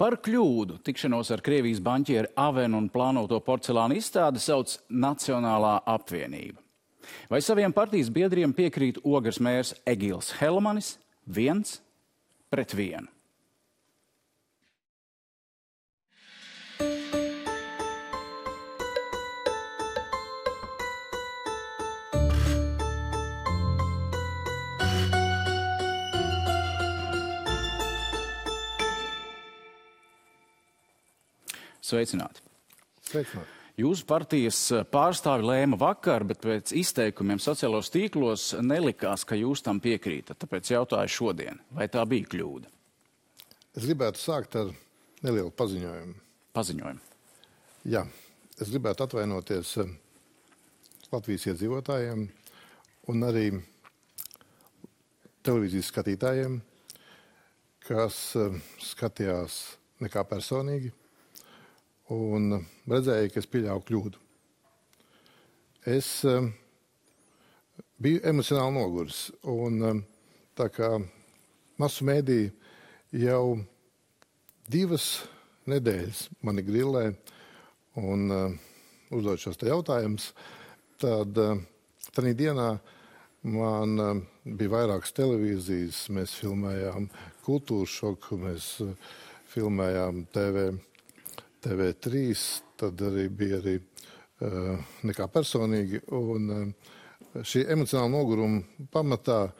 Par kļūdu tikšanos ar Krievijas banķieri Avenu un plānoto porcelāna izstādi sauc Nacionālā apvienība. Vai saviem partijas biedriem piekrīt Ogres mērs Egils Helmanis 1-1? Sveicināti. Sveicināti. Jūsu partijas pārstāvi lēma vakar, bet pēc izteikumiem sociālos tīklos nelikās, ka jūs tam piekrītat. Tāpēc jautāju šodien, vai tā bija kļūda? Es gribētu sākt ar nelielu paziņojumu. Paziņojumu. Jā, es gribētu atvainoties Latvijas iedzīvotājiem un arī televīzijas skatītājiem, kas skatījās nekā personīgi un redzēja, ka es pieļauju kļūdu. Es biju emocionāli noguris, un tā kā masu mēdī jau 2 nedēļas mani grillē un uzdod šos te jautājumus, tad tādā dienā man bija vairākas televīzijas, mēs filmējām Kultūras šoku, mēs filmējām TV3, tad arī bija nekā personīgi, un šī emocionāla noguruma pamatā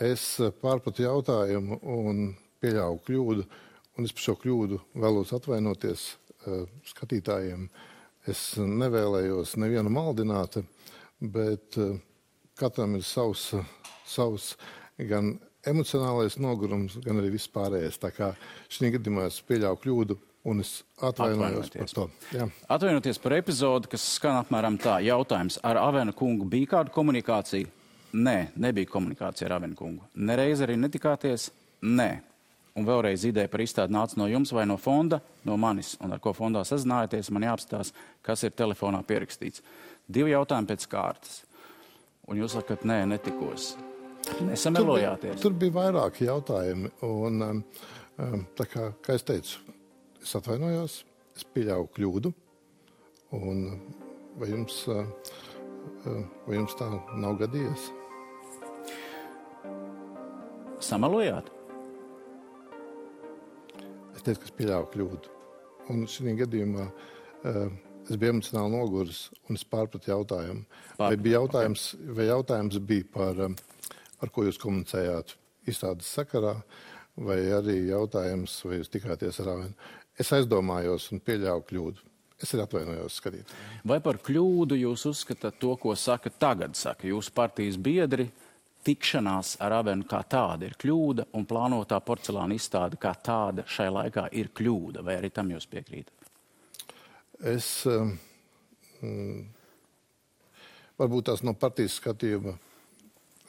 es pārpratu jautājumu un pieļauju kļūdu, un es par šo kļūdu vēlos atvainoties skatītājiem. Es nevēlējos nevienu maldināt, bet katram ir savs gan emocionālais nogurums, gan arī viss pārējais. Tā kā šī gadījumā es pieļauju kļūdu, un es atvainojos par to. Jā. Atvainoties par epizodi, kas skan apmēram tā. Jautājums, ar Avena kungu bija kāda komunikācija? Nē, nebija komunikācija ar Avena kungu. Nereiz arī netikāties? Nē. Un vēlreiz ideja par izstādi nāca no jums vai no fonda, no manis, un ar ko fondā sazinājāties, man jāapstās, kas ir telefonā pierakstīts. 2 jautājumi pēc kārtas. Un jūs sakat, nē, netikos. Nesamelojāties. Tur bija vairāki jautājumi, un tā kā es teicu, es atvainojos, es pieļauju kļūdu, un vai jums tā nav gadījies? Samelojāt? Es teicu, ka es pieļauju kļūdu. Un šī gadījumā es biju emocionāli noguris, un es pārpratu jautājumu. Vai jautājums bija par ko jūs komunicējāt izstādes sakarā, vai arī jautājums, vai jūs tikāties ar Avenu? Es aizdomājos un pieļauju kļūdu. Es arī atvainojos skatītājiem. Vai par kļūdu jūs uzskatāt to, ko tagad saka jūsu partijas biedri, tikšanās ar Avenu kā tāda ir kļūda un plānotā porcelāna izstāde kā tāda šai laikā ir kļūda? Vai arī tam jūs piekrītat? Varbūt tās no partijas skatījuma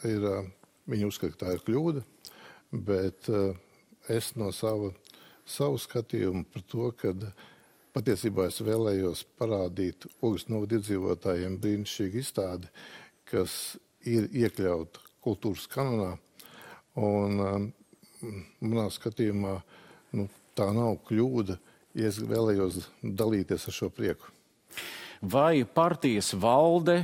viņi uzskata, ka tā ir kļūda, bet es no savu skatījumu par to, ka patiesībā es vēlējos parādīt Ogres novada iedzīvotājiem brīnišķīgu izstādi, kas ir iekļauta kultūras kanonā, un manā skatījumā tā nav kļūda, ja es vēlējos dalīties ar šo prieku. Vai partijas valde,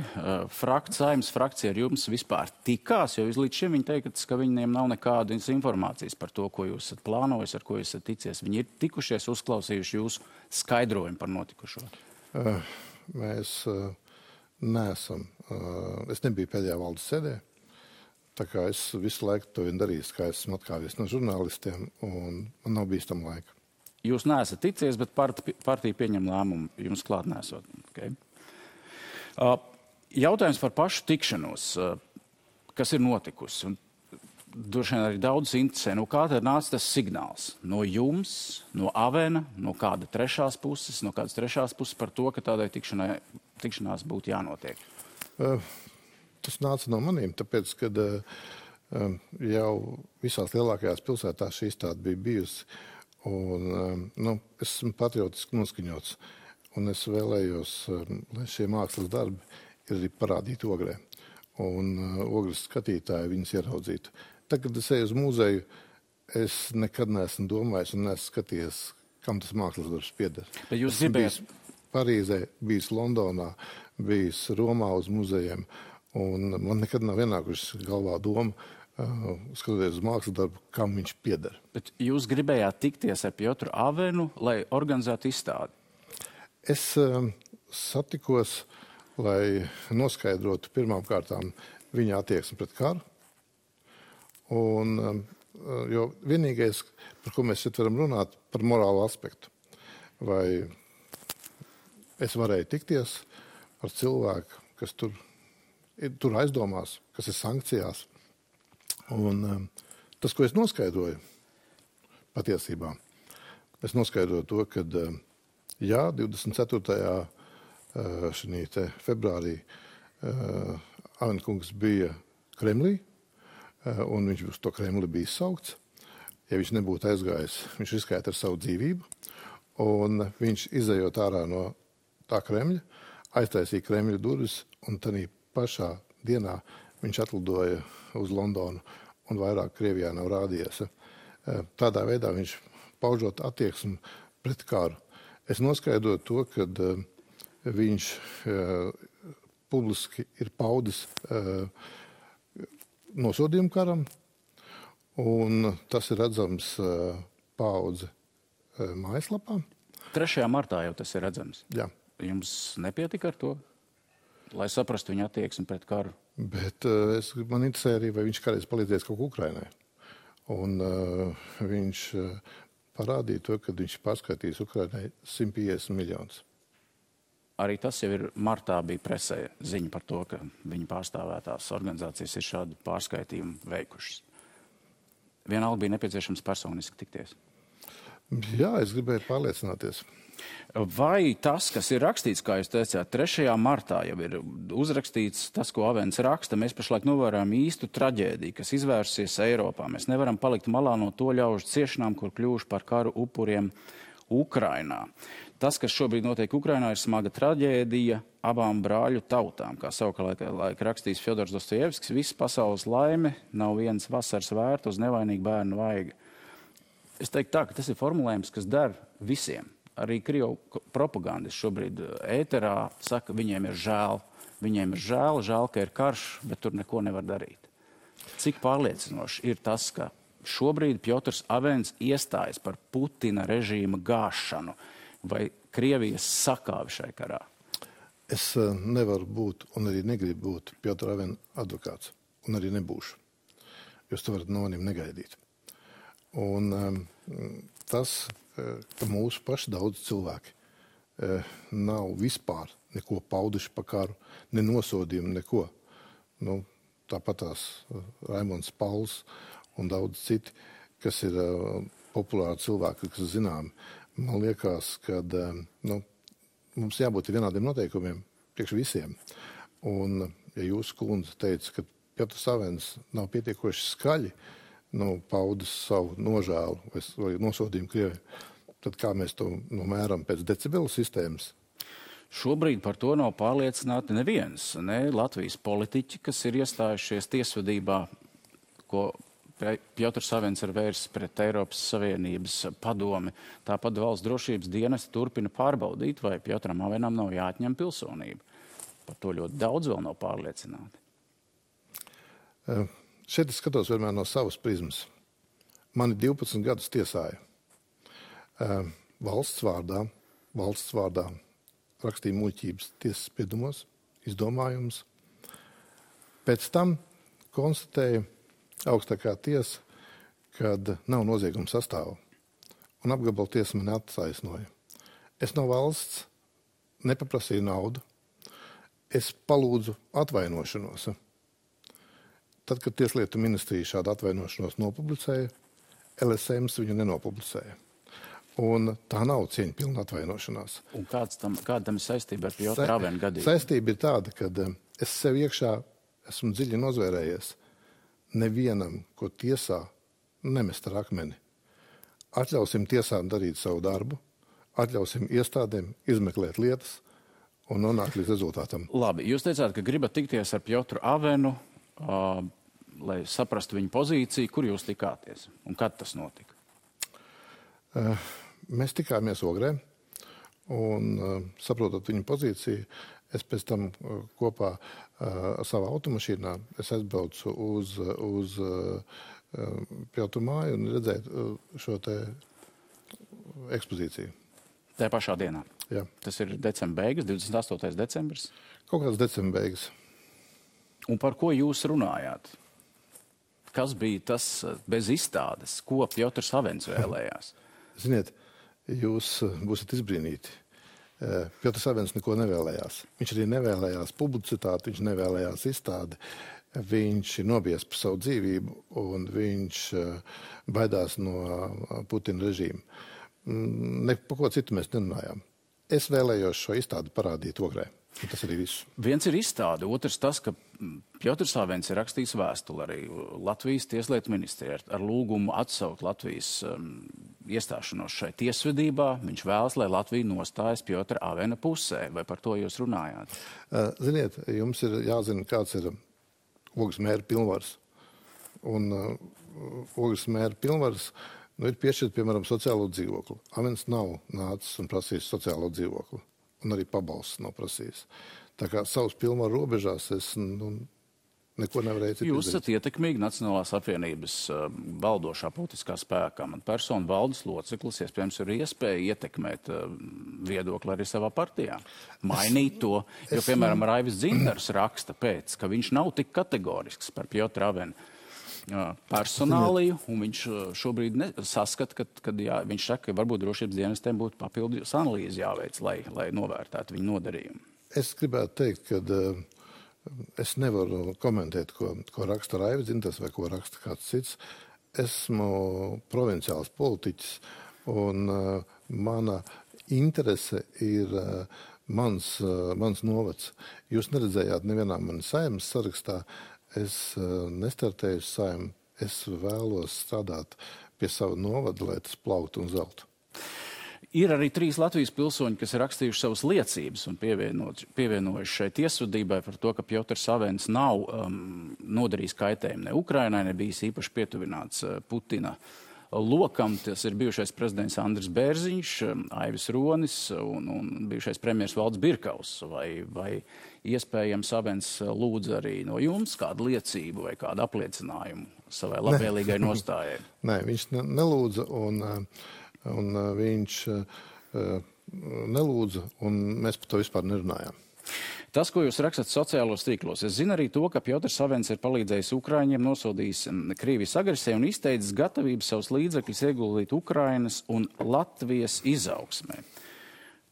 Saeimas frakcija ar jums vispār tikās? Jo līdz šim viņi teikt, ka viņiem nav nekādas informācijas par to, ko jūs esat plānojis, ar ko jūs esat ticies. Viņi ir tikušies, uzklausījuši jūsu skaidrojumu par notikušo? Mēs neesam. Es nebiju pēdējā valdes sēdē, tā kā es visu laiku to vien darīju, kā esmu atkāvies no žurnālistiem, un man nav bijis tam laika. Jūs neesat ticies, bet partija pieņem lēmumu jums klāt nesot. Okay. Jautājums par pašu tikšanos, kas ir notikusi. Un droši vien arī daudz interesē, kā tad nāca tas signāls no jums, no Avena, no kādas trešās puses par to, ka tādai tikšanās būtu jānotiek? Tas nāca no maniem, tāpēc, kad jau visās lielākajās pilsētās šī izstāde bija bijusi. Un, es esmu patriotiski noskaņots, un es vēlējos, lai šie mākslas darbi ir arī parādīti Ogrē. Un Ogres skatītāji viņus ieraudzītu. Tad, kad es eju uz muzeju, es nekad neesmu domājis un neesmu skatījies, kam tas mākslas darbs pieder. Bet jūs Esmu gribējāt... bijis Parīzē, bijis Londonā, bijis Romā uz muzejiem, un man nekad nav ienākušas galvā doma, skatoties uz mākslas darbu, kam viņš pieder. Bet jūs gribējāt tikties ar Piotru Avenu, lai organizētu izstādi? Es satikos, lai noskaidrotu pirmām kārtām viņa attieksmi pret karu. Un, jo vienīgais, par ko mēs šeit varam runāt, par morālu aspektu. Vai es varēju tikties ar cilvēku, kas tur aizdomās, kas ir sankcijās. Un tas, ko es noskaidroju patiesībā, es noskaidroju to, ka jā, 24. Februārī Avenkungs bija Kremlī, un viņš uz to Kremli bija saukts. Ja viņš nebūtu aizgājis, viņš riskētu ar savu dzīvību, un viņš izejot ārā no tā Kremļa, aiztaisīja Kremļa durvis, un tādā pašā dienā viņš atlidoja uz Londonu, un vairāk Krievijā nav rādījies. Tādā veidā viņš paužot attieksmi pret karu. Es noskaidroju to, ka viņš publiski ir paudis nosodījumu karam, un tas ir redzams Paudze mājaslapā. 3. martā jau tas ir redzams. Jā. Jums nepietika ar to, lai saprastu viņa attieksmi pret karu? Bet man interesē arī, vai viņš kādreiz palīdzēs kaut ko Ukrainai. Un viņš parādīja to, ka viņš pārskaitīs Ukrainai 150 miljonus. Arī tas jau ir martā bija presē ziņa par to, ka viņa pārstāvētās organizācijas ir šādu pārskaitījumu veikušas. Vienalga bija nepieciešams personiski tikties. Jā, es gribēju pārliecināties. Vai tas, kas ir rakstīts, kā jūs teicāt, 3. martā jau ir uzrakstīts tas, ko Avens raksta, mēs pašlaik novērojam īstu traģēdiju, kas izvērsies Eiropā. Mēs nevaram palikt malā no to ļaužu ciešanām, kur kļuvuši par karu upuriem Ukrainā. Tas, kas šobrīd notiek Ukrainā, ir smaga traģēdija abām brāļu tautām. Kā savukārt rakstījis Fjodors Dostojevskis, viss pasaules laime nav viens vasaras vērt uz nevainīgu bērnu vaiga. Es teiktu tā, ka tas ir formulējums, kas der visiem. Arī Krievu propagandisti šobrīd ēterā saka, viņiem ir žēl. Viņiem ir žēl, ka ir karš, bet tur neko nevar darīt. Cik pārliecinoši ir tas, ka šobrīd Piotrs Avens iestājas par Putina režīma gāšanu vai Krievijas sakāvi šai karā? Es nevaru būt un arī negribu būt Piotra Avena advokāts, un arī nebūšu. Jūs to varat no manim negaidīt. Un tas, ka mūsu paši daudz cilvēki nav vispār neko pauduši par karu, ne nosodījumu, neko. Tāpat tās Raimonds Pauls un daudz citi, kas ir populāri cilvēki, kas zināmi. Man liekas, ka mums jābūt vienādiem noteikumiem priekš visiem. Un, ja jūsu kundze teica, ka Piotrs Avens nav pietiekoši skaļi paudis savu nožēlu vai nosodījumu Krievijai, tad kā mēs to mēram pēc decibelu sistēmas? Šobrīd par to nav pārliecināti neviens, ne Latvijas politiķi, kas ir iestājušies tiesvedībā, ko Piotrs Avens ir vērsis pret Eiropas Savienības padomi. Tāpat valsts drošības dienesti turpina pārbaudīt, vai Piotram Avenam nav jāatņem pilsonība. Par to ļoti daudz vēl nav pārliecināti. Šeit es skatos vienmēr no savas prizmas. Mani 12 gadus tiesāja. Valsts vārdā rakstīja muļķības tiesas spriedumos, izdomājumus. Pēc tam konstatēja augstākā tiesa, kad nav nozieguma sastāva. Un apgabala tiesa mani attaisnoja. Es no valsts nepaprasīju naudu. Es palūdzu atvainošanos. Tad, kad Tieslietu ministrija šādu atvainošanos nopublicēja, LSMs viņu nenopublicēja. Un tā nav cieņpilna atvainošanās. Un kāda tam ir saistība ar Piotru Avenu gadījumu? Saistība ir tāda, ka es sev iekšā esmu dziļi nozvērējies. Nevienam, ko tiesā, nemest ar akmeni. Atļausim tiesām darīt savu darbu, atļausim iestādēm izmeklēt lietas un nonākt līdz rezultātam. Labi, jūs teicāt, ka gribat tikties ar Piotru Avenu, lai saprastu viņa pozīciju. Kur jūs tikāties un kad tas notika? Mēs tikāmies Ogrē, un saprotot viņu pozīciju, es pēc tam kopā savā automašīnā aizbraucu uz Piotru māju un redzēju šo te ekspozīciju. Tā pašā dienā? Jā. Tas ir decembra beigas, 28. decembris? Kaut kāds decembra beigas. Un par ko jūs runājāt? Kas bija tas bez izstādes, ko Piotrs Avens vēlējās? Ziniet, jūs būsiet izbrīnīti. Piotrs Avens neko nevēlējās. Viņš arī nevēlējās publicitāti, viņš nevēlējās izstādi. Viņš ir nobijies par savu dzīvību un viņš baidās no Putina režīma. Ne par ko citu mēs nerunājām. Es vēlējos šo izstādi parādīt Ogrē. Tas arī viss. Viens ir izstāde, otrs tas, ka Piotrs Avens ir rakstījis vēstuli arī Latvijas tieslietu ministrijai ar lūgumu atsaukt Latvijas iestāšanos šai tiesvedībā. Viņš vēlas, lai Latvija nostājas Piotra Avena pusē. Vai par to jūs runājāt? Ziniet, jums ir jāzina, kāds ir Ogres mēra pilnvars. Un Ogres mēra pilnvars ir piešķirt, piemēram, sociālo dzīvokli. Avens nav nācis un prasījis sociālo dzīvokli. Un arī pabalsts nav prasījis. Tā kā savus pilnvaru robežās es neko nevarēju citu Jūs esat ietekmīgi Nacionālās apvienības valdošā politiskā spēkā. Man persona valdes loceklis, iespējams, ir iespēja ietekmēt viedokli arī savā partijā. Mainīt to, jo, piemēram, Raivis Dzintars raksta pēc, ka viņš nav tik kategorisks par Piotru Avenu personāliju, un viņš šobrīd saskata, kad viņš saka, ka varbūt drošības dienestiem būtu papildus analīzi jāveic, lai novērtētu viņu nodarījumu. Es gribētu teikt, ka es nevaru komentēt, ko raksta Raivis Dzintars vai ko raksta kāds cits. Esmu provinciāls politiķis, un mana interese ir mans novads. Jūs neredzējāt nevienā manas saeimas sarakstā. Es nestartēju saimnu, es vēlos strādāt pie sava novada, lai tas plauktu un zeltu. Ir arī 3 Latvijas pilsoņi, kas ir rakstījuši savas liecības un pievienojuši šai tiesvedībai par to, ka Piotrs Avens nav nodarījis kaitējumu ne Ukrainai, ne bijis īpaši pietuvināts Putina lokam. Tas ir bijušais prezidents Andris Bērziņš, Aivis Ronis un bijušais premjers Valds Birkaus. Vai iespējams Avens lūdza arī no jums kādu liecību vai kādu apliecinājumu savai labvēlīgai nostājai? Nē, viņš nelūdza un viņš nelūdza, un mēs par to vispār nerunājām. Tas, ko jūs rakstat sociālos tīklos, es zinu arī to, ka Piotrs Avens ir palīdzējis Ukraiņiem, nosodījis Krievijas agresiju un izteicis gatavību savus līdzekļus ieguldīt Ukrainas un Latvijas izaugsmē.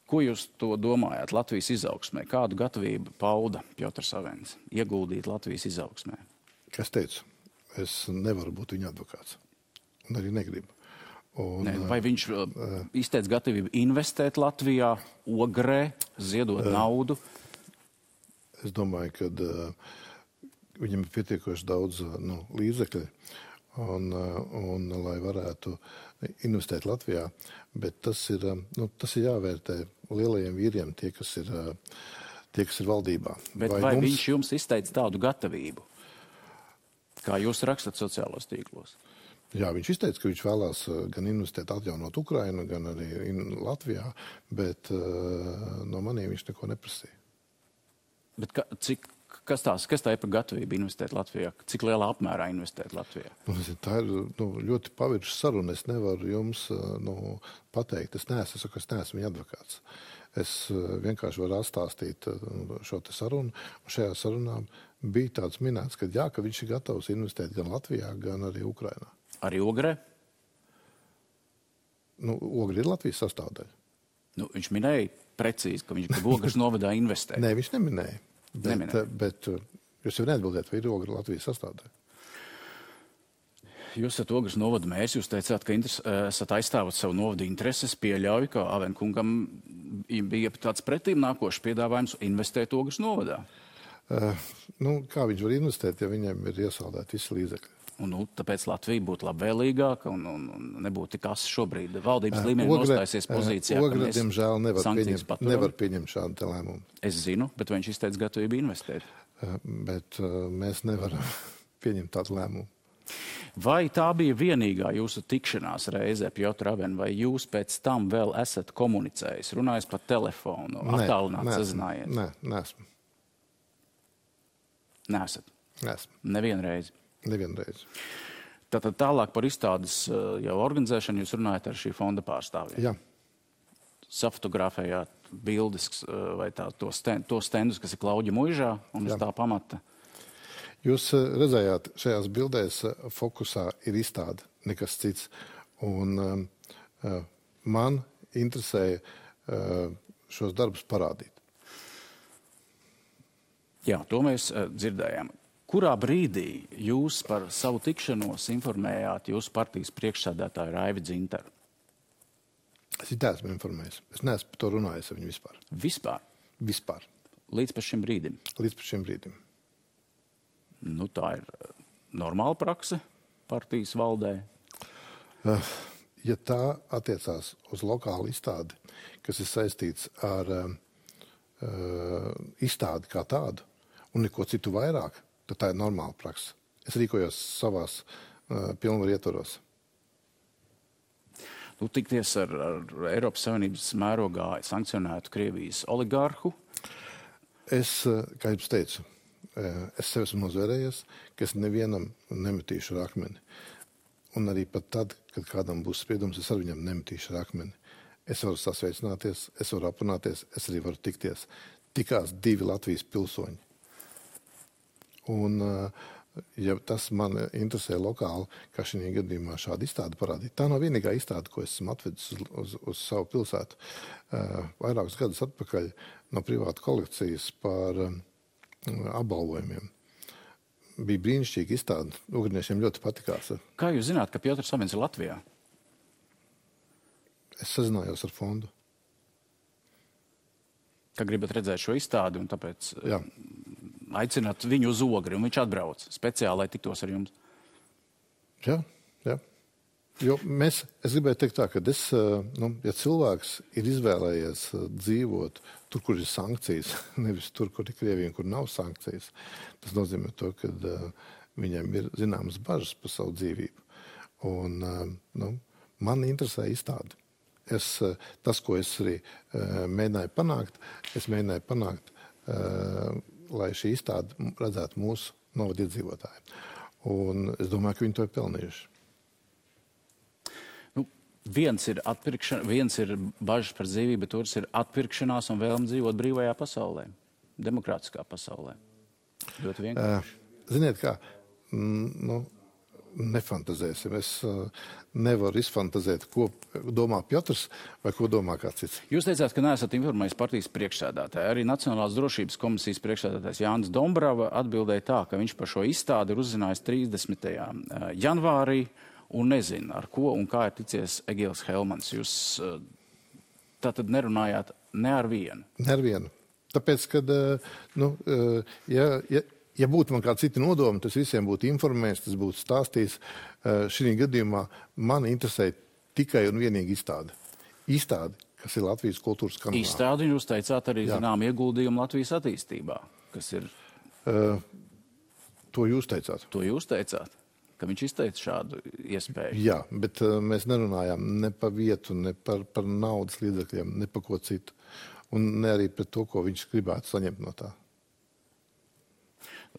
Ko jūs to domājat Latvijas izaugsmē? Kādu gatavību pauda Piotrs Avens ieguldīt Latvijas izaugsmē? Kas teicu? Es nevaru būt viņa advokāts. Un arī negribu. Vai viņš izteica gatavību investēt Latvijā, Ogrē, ziedot naudu? Es domāju, ka viņam ir pietiekoši daudz līdzekļu, un lai varētu investēt Latvijā, bet tas ir jāvērtē lielajiem vīriem, tie, kas ir valdībā. Bet vai viņš jums izteica tādu gatavību, kā jūs rakstat sociālos tīklos? Jā, viņš izteica, ka viņš vēlās gan investēt, atjaunot Ukrainu, gan arī Latvijā, bet no maniem viņš neko neprasīja. Bet kas tā ir par gatavību investēt Latvijā? Cik lielā apmērā investēt Latvijā? Tā ir ļoti pavirša saruna. Es nevaru jums pateikt. Es neesmu viņa advokāts. Es vienkārši varu atstāstīt šo te sarunu. Un šajā sarunā bija tāds minēts, ka jā, ka viņš ir gatavs investēt gan Latvijā, gan arī Ukrainā. Arī Ogrē? Ogre ir Latvijas sastāvdaļa. Viņš minēja precīzi, ka viņš grib Ogres novadā investēt. Nē, viņš neminēja. Bet jūs jau neatbildēt, vai ir Ogre Latvijas sastāvdaļa? Jūs esat Ogres novada mērs, jūs teicāt, ka esat aizstāvat savu novadu intereses, pieļauju, ka Avenkungam bija tāds pretīm nākošs piedāvājums investēt Ogres novadā. Kā viņš var investēt, ja viņam ir iesaldēti visi līdzekļi? Tāpēc Latvija būtu labvēlīgāka un nebūtu tik asi šobrīd valdības līmenī nostājusies pozīcijā, ka mēs diemžēl nevar pieņemt šādu lēmumu. Es zinu, bet viņš izteica gatavību investēt. Bet mēs nevaram pieņemt tādu lēmumu. Vai tā bija vienīgā jūsu tikšanās reize, Pjotr Aven, vai jūs pēc tam vēl esat komunicējis, runājis pa telefonu, attālināt sazinājies? Nē, neesmu. Neesat? Neesmu. Nevienreiz? Nevienreiz. Tātad tālāk par izstādes jau organizēšanu jūs runājat ar šī fonda pārstāvjiem? Jā. Safotografējāt bildes vai tos stendus, kas ir Klauģa muižā un uz tā pamata? Jūs redzējāt, šajās bildēs fokusā ir izstāde, nekas cits. Un man interesēja šos darbus parādīt. Jā, to mēs dzirdējām. Kurā brīdī jūs par savu tikšanos informējāt jūsu partijas priekšsēdētāju Raivi Dzintaru? Es esmu informējis. Es neesmu par to runājis ar viņu vispār. Vispār? Vispār. Līdz pa šim brīdim? Līdz pa šim brīdim. Nu, tā ir normāla prakse partijas valdē? Ja tā attiecās uz lokālu izstādi, kas ir saistīts ar izstādi kā tādu un neko citu vairāk, tad tā ir normāla prakse. Es rīkojos savās pilnvaru ietvaros. Tikties ar Eiropas Savienības mērogā sankcionētu Krievijas oligārhu? Es, kā jums teicu, es sev esmu nozvērējies, ka es nevienam nemetīšu ar akmeni. Un arī pat tad, kad kādam būs spriedums, es ar viņam nemetīšu ar akmeni. Es varu sasveicināties, es varu aprunāties, es arī varu tikties. Tikās 2 Latvijas pilsoņi. Un ja tas man interesē lokāli, kā šī gadījumā šāda izstāde parādīt. Tā nav vienīgā izstāde, ko esmu atvedis uz savu pilsētu. Vairākus gadus atpakaļ no privāta kolekcijas par apbalvojumiem. Bija brīnišķīga izstāde. Ugriniešiem ļoti patikās. Kā jūs zināt, ka Pjotrs Avens ir Latvijā? Es sazinājos ar fondu. Ka gribat redzēt šo izstādi un tāpēc... Jā. Aicināt viņu uz Ogri, un viņš atbrauc speciāli, lai tiktos ar jums. Jā. Jo es gribēju teikt tā, ka ja cilvēks ir izvēlējies dzīvot tur, kur ir sankcijas, nevis tur, kur ir Krievija un kur nav sankcijas, tas nozīmē to, ka viņiem ir zināmas bažas par savu dzīvību. Un man interesē izstādi. Tas, ko es arī mēģināju panākt, lai šī izstāde redzētu mūsu novada iedzīvotāju. Un es domāju, ka viņi to ir pelnījuši. Viens ir bažas par dzīvību, bet otrs ir atpirkšanās un vēlme dzīvot brīvajā pasaulē, demokrātiskā pasaulē. Ļoti vienkārši. Ziniet kā, nefantazēsim. Es nevaru izfantazēt, ko domā Pjotrs vai ko domā kāds cits. Jūs teicāt, ka neesat informējis partijas priekšsēdētāju. Arī Nacionālās drošības komisijas priekšsēdētājs Jānis Dombrava atbildēja tā, ka viņš par šo izstādi ir uzzinājis 30. janvārī un nezina, ar ko un kā ir ticies Egils Helmans. Jūs tātad nerunājāt ne ar vienu? Ne ar vienu. Tāpēc, kad, ja būtu man kādi citi nodomi, tas visiem būtu informējis, tas būtu stāstījis. Šī gadījumā man interesē tikai un vienīgi izstāde. Izstāde, kas ir Latvijas kultūras kanālā. Izstādi, jūs teicāt arī zinām ieguldījumu Latvijas attīstībā, kas ir... To jūs teicāt. To jūs teicāt, ka viņš izteica šādu iespēju. Jā, bet mēs nerunājām ne par vietu, ne par naudas līdzekļiem, ne par ko citu. Un ne arī par to, ko viņš gribētu saņemt no tā.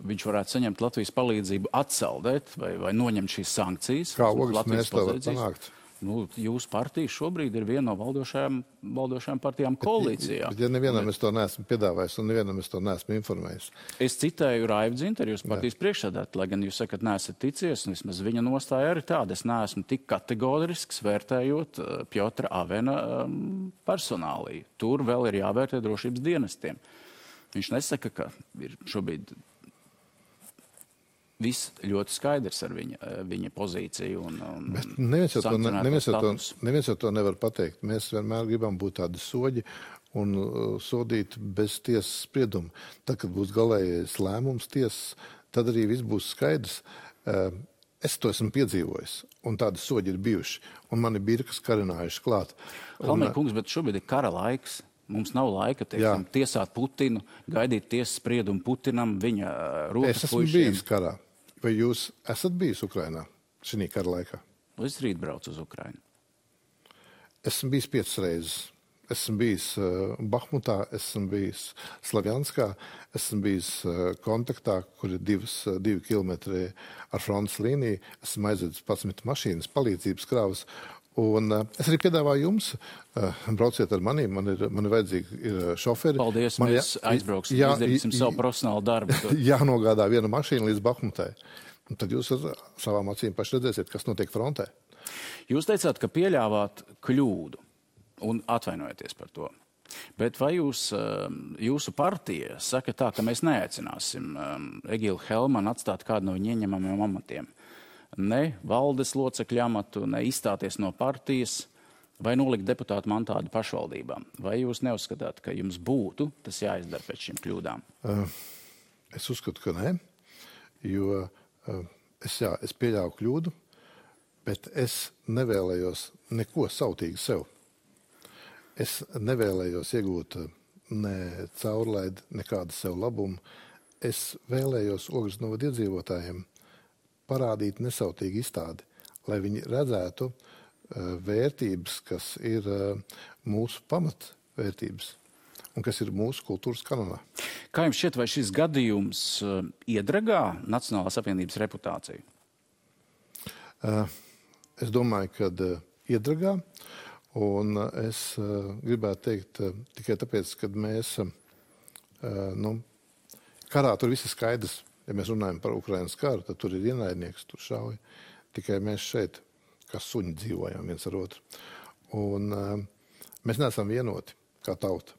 Viņš varētu saņemt Latvijas palīdzību atsaldēt vai noņemt šīs sankcijas. Kā Ogris mēs to var panākt? Jūsu partija šobrīd ir viena no valdošajām partijām koalīcijā. Bet ja nevienam es to neesmu piedāvājis un nevienam es to neesmu informējis. Es citēju Raivi Dzintaru, jūs partijas priekšsēdētāju, lai gan jūs sakat, neesat ticies, un vismaz viņa nostāja arī tāda. Es neesmu tik kategorisks vērtējot Pjotra Avena personāliju. Tur vēl ir jāvērtē drošības dienestiem. Viņš nesaka, ka ir šobrīd viss ļoti skaidrs ar viņa pozīciju un neviens jau to nevar pateikt. Mēs vienmēr gribam būt tādi soģi un sodīt bez tiesas sprieduma. Tad, kad būs galējais lēmums tiesas, tad arī viss būs skaidrs. Es to esmu piedzīvojis, un tādi soģi ir bijuši, un mani birkas karinājuši klāt. Halmēr kungs, bet šobrīd ir kara laiks. Mums nav laika, teiksim, tiesāt Putinu, gaidīt tiesas spriedumu Putinam, viņa rokas puišiem. Es esmu bijis karā. Vai jūs esat bijis Ukrainā? šī kara laikā. Es rīt braucu uz Ukrainu. Esmu bijis 5 reizes. Esmu bijis Bahmutā, esmu bijis Slavjanskā, esmu bijis kontaktā, kur ir 2 kilometri ar frontes līniju. Esmu aizvedis 11 mašīnas, palīdzības krāvas. Un es arī piedāvāju jums, brauciet ar mani, man ir vajadzīgi šoferi. Paldies, mēs aizbrauksim, izdarīsim savu profesionālu darbu. Jānogādā viena mašīna līdz Bahmutai. Un tad jūs ar savām acīm paši redzēsiet, kas notiek frontē. Jūs teicāt, ka pieļāvāt kļūdu un atvainojaties par to. Bet vai jūsu partija saka tā, ka mēs neaicināsim Egilu Helmanu atstāt kādu no viņa ieņemamiem amatiem? Ne valdes locekļu amatu, ne izstāties no partijas vai nolikt deputātu mantādu pašvaldībām? Vai jūs neuzskatāt, ka jums būtu tas jāizdara pēc šīm kļūdām? Es uzskatu, ka nē, jo es pieļauju kļūdu, bet es nevēlējos neko sautīgi sev. Es nevēlējos iegūt ne caurlaidi, nekādu sev labumu. Es vēlējos Ogres novada iedzīvotājiem parādīt nesautīgi izstādi, lai viņi redzētu vērtības, kas ir mūsu pamatvērtības un kas ir mūsu kultūras kanonā. Kā jums šķiet, vai šis gadījums iedragā Nacionālās apvienības reputāciju? Es domāju, ka iedragā, un es gribētu teikt tikai tāpēc, ka mēs, karā tur viss ir skaidrs. Ja mēs runājam par Ukrainas karu, tad tur ir ienaidnieks, tur šauj. Tikai mēs šeit, kā suņi, dzīvojam viens ar otru. Un mēs neesam vienoti kā tauta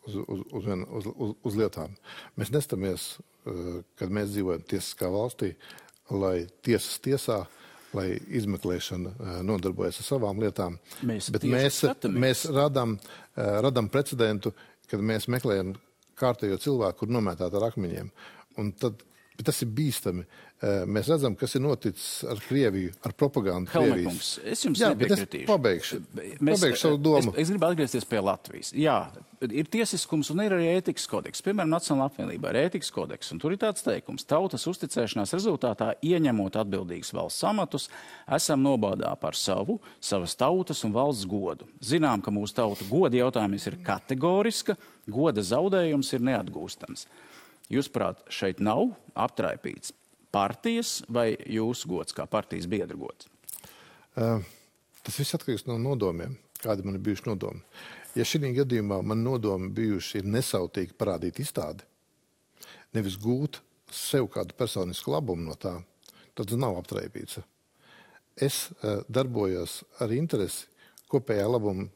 uz lietām. Mēs nestamies, kad mēs dzīvojam tiesiskā valstī, lai tiesas tiesā, lai izmeklēšana nodarbojas ar savām lietām. Bet mēs radam precedentu, kad mēs meklējam kārtējo cilvēku, kur nomētāt ar akmeņiem. Un tad tas ir bīstami. Mēs redzam, kas ir noticis ar Krieviju, ar propagandu Krievijas. Es jums nepiekritīšu. Pabeigšu savu domu. Es gribu atgriezties pie Latvijas. Jā, ir tiesiskums un ir arī ētikas kodeks. Piemēram, Nacionālā apvienībā ir ētikas kodeks. Un tur ir tāds teikums: tautas uzticēšanās rezultātā, ieņemot atbildīgus valsts amatus, esam nobādā par savas tautas un valsts godu. Zinām, ka mūsu tauta goda jautājums ir kategoriska, goda zaudējums ir neatgūstams. Jūsuprāt, šeit nav aptraipīts partijas vai jūsu gods kā partijas biedra gods? Tas viss atkarīgs no nodomiem, kādi man ir bijuši nodomi. Ja šī gadījumā man nodomi bijuši ir nesautīgi parādīt izstādi, nevis gūt sev kādu personisku labumu no tā, tad tas nav aptraipīts. Es darbojos ar interesi kopējā labumam,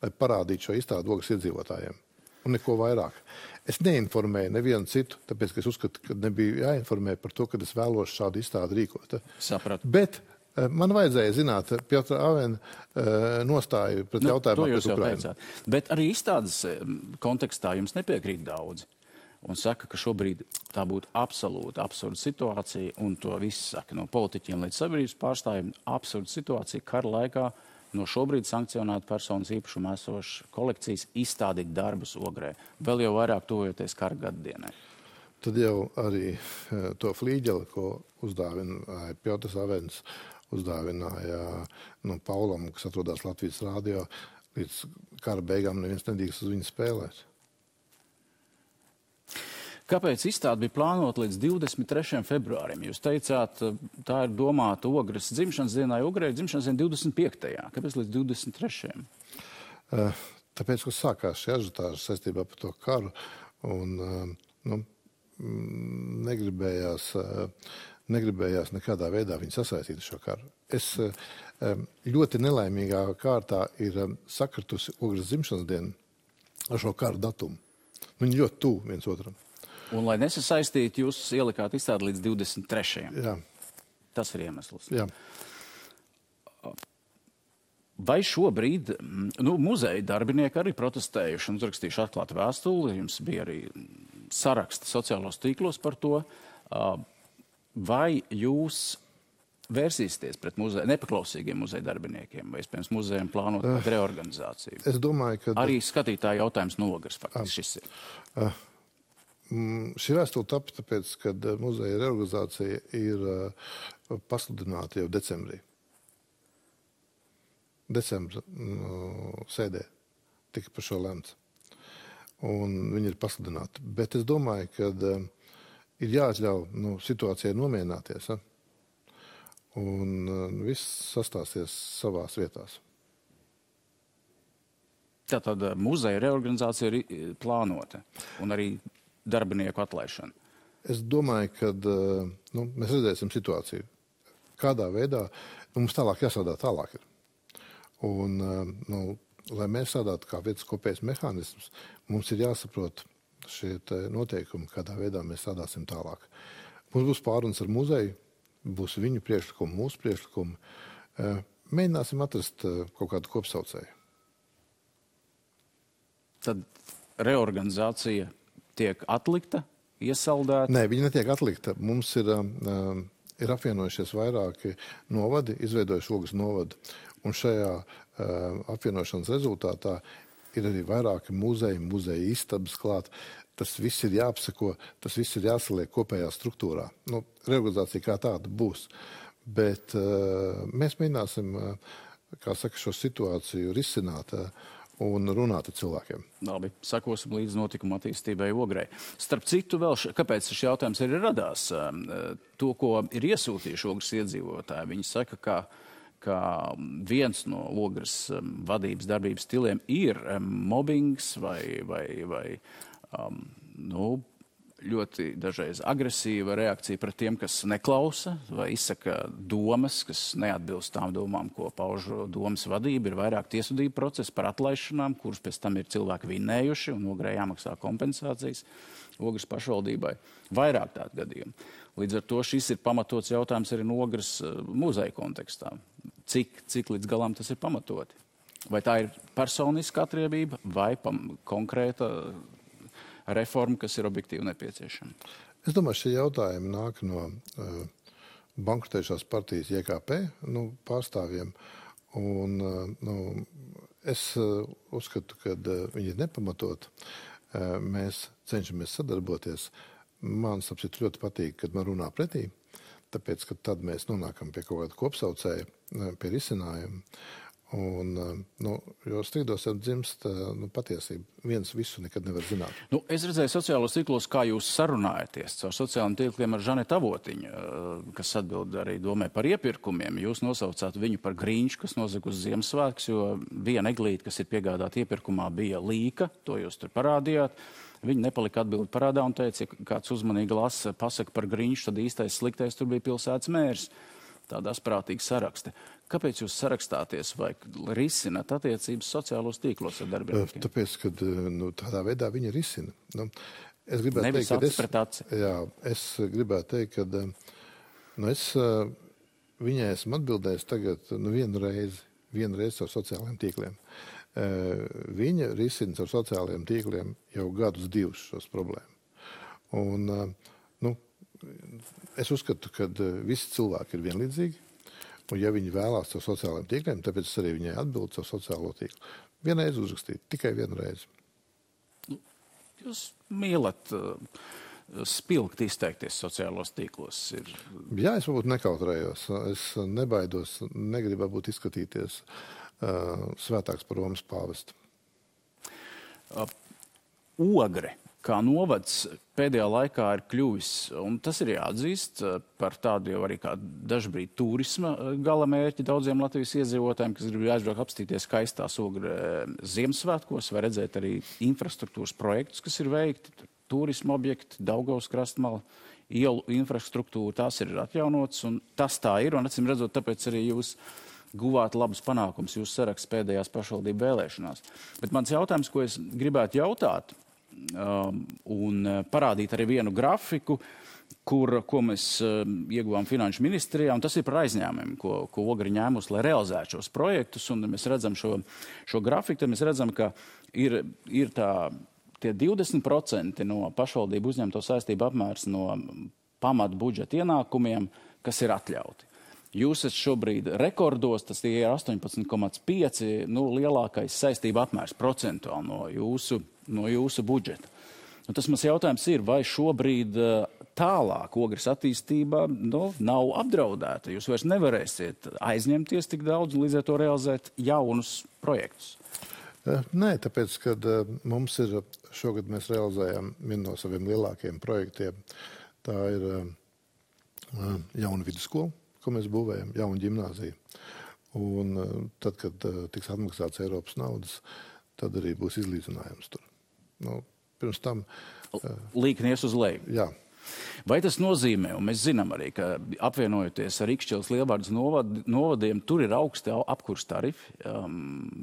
lai parādītu šo izstādi Ogres iedzīvotājiem. Un neko vairāk. Es neinformēju nevienu citu, tāpēc, ka es uzskatu, ka nebija jāinformē par to, ka es vēlos šādu izstādi rīkot. Sapratu. Bet man vajadzēja zināt Piotra Avena nostāju pret jautājumu pret Ukrainu. Bet arī izstādes kontekstā jums nepiekrīt daudzi. Un saka, ka šobrīd tā būtu absolūti absurda situācija, un to viss saka no politiķiem līdz sabiedrības pārstāvjiem. Absurda situācija kara laikā no šobrīd sankcionētu personas īpašumā esošas kolekcijas izstādīt darbus Ogrē. Vēl jau vairāk tuvojoties kara gaddienai. Tad jau arī to flīģeli, ko uzdāvināja Piotrs Avens, uzdāvināja Paulam, kas atrodas Latvijas rādio, līdz kara beigām neviens nedrīkst uz viņu spēlēt. Kāpēc izstāde bija plānota līdz 23. februārim? Jūs teicāt, tā ir domāta Ogres dzimšanas dienai, Ogrē dzimšanas dienai 25. Kāpēc līdz 23. Tāpēc, ka sākās šī ažiotāža saistībā par to karu un negribējās nekādā veidā viņu sasaistīt šo karu. Es ļoti nelaimīgā kārtā ir sakritusi Ogres dzimšanas dienu ar šo karu datumu. Viņi ļoti tuvu viens otram. Un, lai nesasaistītu, jūs ielikāt izstādi līdz 23. Jā. Tas ir iemesls. Jā. Vai šobrīd muzeja darbinieki arī protestējuši un uzrakstījuši atklātu vēstuli? Jums bija arī saraksti sociālos tīklos par to. Vai jūs vērsīsieties pret nepaklausīgiem muzeja darbiniekiem vai, iespējams, muzejiem plānot reorganizāciju? Es domāju, ka... Arī skatītāja jautājums no Ogres faktiski šis ir. Šī vēstule tapa tāpēc, kad muzeja reorganizācija ir pasludināta jau decembrī. Decembra sēdē tika par šo lemts. Un viņi ir pasludināti. Bet es domāju, ka ir jāatļauj situācijai nomierināties. Un viss sastāsies savās vietās. Tātad muzeja reorganizācija ir plānota un arī darbinieku atlaišana. Es domāju, ka mēs redzēsim situāciju. Kādā veidā mums tālāk jāsādā tālāk ir. Un, lai mēs sādātu kā viens kopējs mehānisms, mums ir jāsaprot šie noteikumi, kādā veidā mēs sādāsim tālāk. Mums būs pārunas ar muzeju, būs viņu priekšlikumi, mūsu priekšlikumi. Mēģināsim atrast kaut kādu kopsaucēju. Tad reorganizācija tiek atlikta, iesaldēta? Nē, viņa netiek atlikta. Mums ir apvienojušies vairāki novadi, izveidojuši Ogres novadu. Un šajā apvienošanas rezultātā ir arī vairāki muzeja istabas klāt. Tas viss ir jāapseko, tas viss ir jāsaliek kopējā struktūrā. Reorganizācija kā tāda būs. Bet mēs mēģināsim, kā saka, šo situāciju risināt un runāt ar cilvēkiem. Labi, sakosim līdz notikuma attīstībai Ogrei. Starp citu, kāpēc šis jautājums arī radās? To, ko ir iesūtījuši Ogres iedzīvotāji, viņi saka, ka viens no Ogres vadības darbības stiliem ir mobbings vai ļoti dažreiz agresīva reakcija pret tiem, kas neklausa vai izsaka domas, kas neatbilst tām domām, ko pauž domas vadība. Ir vairāk tiesvedību procesi par atlaišanām, kurus pēc tam ir cilvēki vinnējuši un Ogrei jāmaksā kompensācijas Ogres pašvaldībai. Vairāk tādu gadījumu. Līdz ar to šis ir pamatots jautājums arī no Ogres muzeja kontekstā. Cik līdz galam tas ir pamatoti? Vai tā ir personiska atriebība vai konkrēta reforma, kas ir objektīvi nepieciešama? Es domāju, šie jautājumi nāk no bankrotējušās partijas JKP pārstāvjiem. Un, es uzskatu, ka viņi ir nepamatot. Mēs cenšamies sadarboties. Man sapsit ļoti patīk, kad man runā pretī, tāpēc, ka tad mēs nonākam pie kaut kāda kopsaucēja, pie risinājuma. Un, jo strīdos jau dzimst patiesība. Viens visu nekad nevar zināt. Es redzēju sociālos tīklos, kā jūs sarunājaties caur sociālajiem tīkliem ar Žanetu Avotiņu, kas atbild arī domē par iepirkumiem. Jūs nosaucāt viņu par Grīņšu, kas nosaka uz Ziemassvētkus, jo viena eglīte, kas ir piegādāta iepirkumā, bija līka, to jūs tur parādījāt. Viņi nepalika atbildi parādā un teica, ja kāds uzmanīgi lasa pasaka par Grīņšu, tad īstais sliktais tur bija pilsētas mērs. Tādās prātīgas saraksti. Kāpēc jūs sarakstāties vai risināt attiecības sociālos tīklos ar darbiniekiem? Tāpēc, ka tādā veidā viņi risina. Es gribētu Nevis teikt, acis pret aci. Jā, es gribētu teikt, ka es viņai esmu atbildējis tagad vienu reizi ar sociālajiem tīkliem. Viņa risina ar sociālajiem tīkliem jau gadus divus šos problēmu. Un, es uzskatu, ka visi cilvēki ir vienlīdzīgi, un ja viņi vēlās ar sociālajiem tīkliem, tāpēc es arī viņai atbildu ar sociālo tīklu. Vienreiz uzrakstīt, tikai vienreiz. Jūs mīlat spilgt izteikties sociālos tīklos? Jā, es varbūt nekautrējos. Es nebaidos, negribu būt izskatīties svētāks par Romas pāvestu. Ogre kā novads pēdējā laikā ir kļuvis, un tas ir jāatzīst, par tādu jau arī kā dažbrīd turisma galamērķi daudziem Latvijas iedzīvotājiem, kas grib aizbraukt apstīties skaistās Ogre Ziemassvētkos, vai redzēt arī infrastruktūras projektus, kas ir veikti, turisma objekti, Daugavas krastmala, ielu infrastruktūra, tās ir atjaunotas, un tas tā ir, un acīm redzot, tāpēc arī jūs guvāt labus panākumus jūsu saraksts pēdējās pašvaldību vēlēšanās. Bet mans jautājums, ko es gribētu jautāt, un parādīt arī vienu grafiku, ko mēs ieguvām Finanšu ministrijā, un tas ir par aizņēmumiem, ko Ogre ņēmus, lai realizētu šos projektus, un mēs redzam šo grafiku, tad mēs redzam, ka ir tie 20% no pašvaldību uzņemto saistību apmērs no pamatu budžeta ienākumiem, kas ir atļauti. Jūs esat šobrīd rekordos, tas ir 18,5, lielākais saistība apmērs procentuāli no jūsu budžeta. Tas mans jautājums ir, vai šobrīd tālāk Ogres attīstība nav apdraudēta? Jūs vairs nevarēsiet aizņemties tik daudz un līdz ar to realizēt jaunus projektus. Nē, tāpēc, kad mums ir šogad mēs realizējam vienu no saviem lielākajiem projektiem. Tā ir jauna vidusskola, ko mēs būvējam, jauna ģimnāzija. Un tad, kad tiks atmaksāts Eiropas naudas, tad arī būs izlīdzinājums tur. Pirms tam... Līknies uz leju. Jā. Vai tas nozīmē, un mēs zinām arī, ka apvienojoties ar Ikšķeles Lielvārdas novadiem, tur ir augsti apkurs tarifi,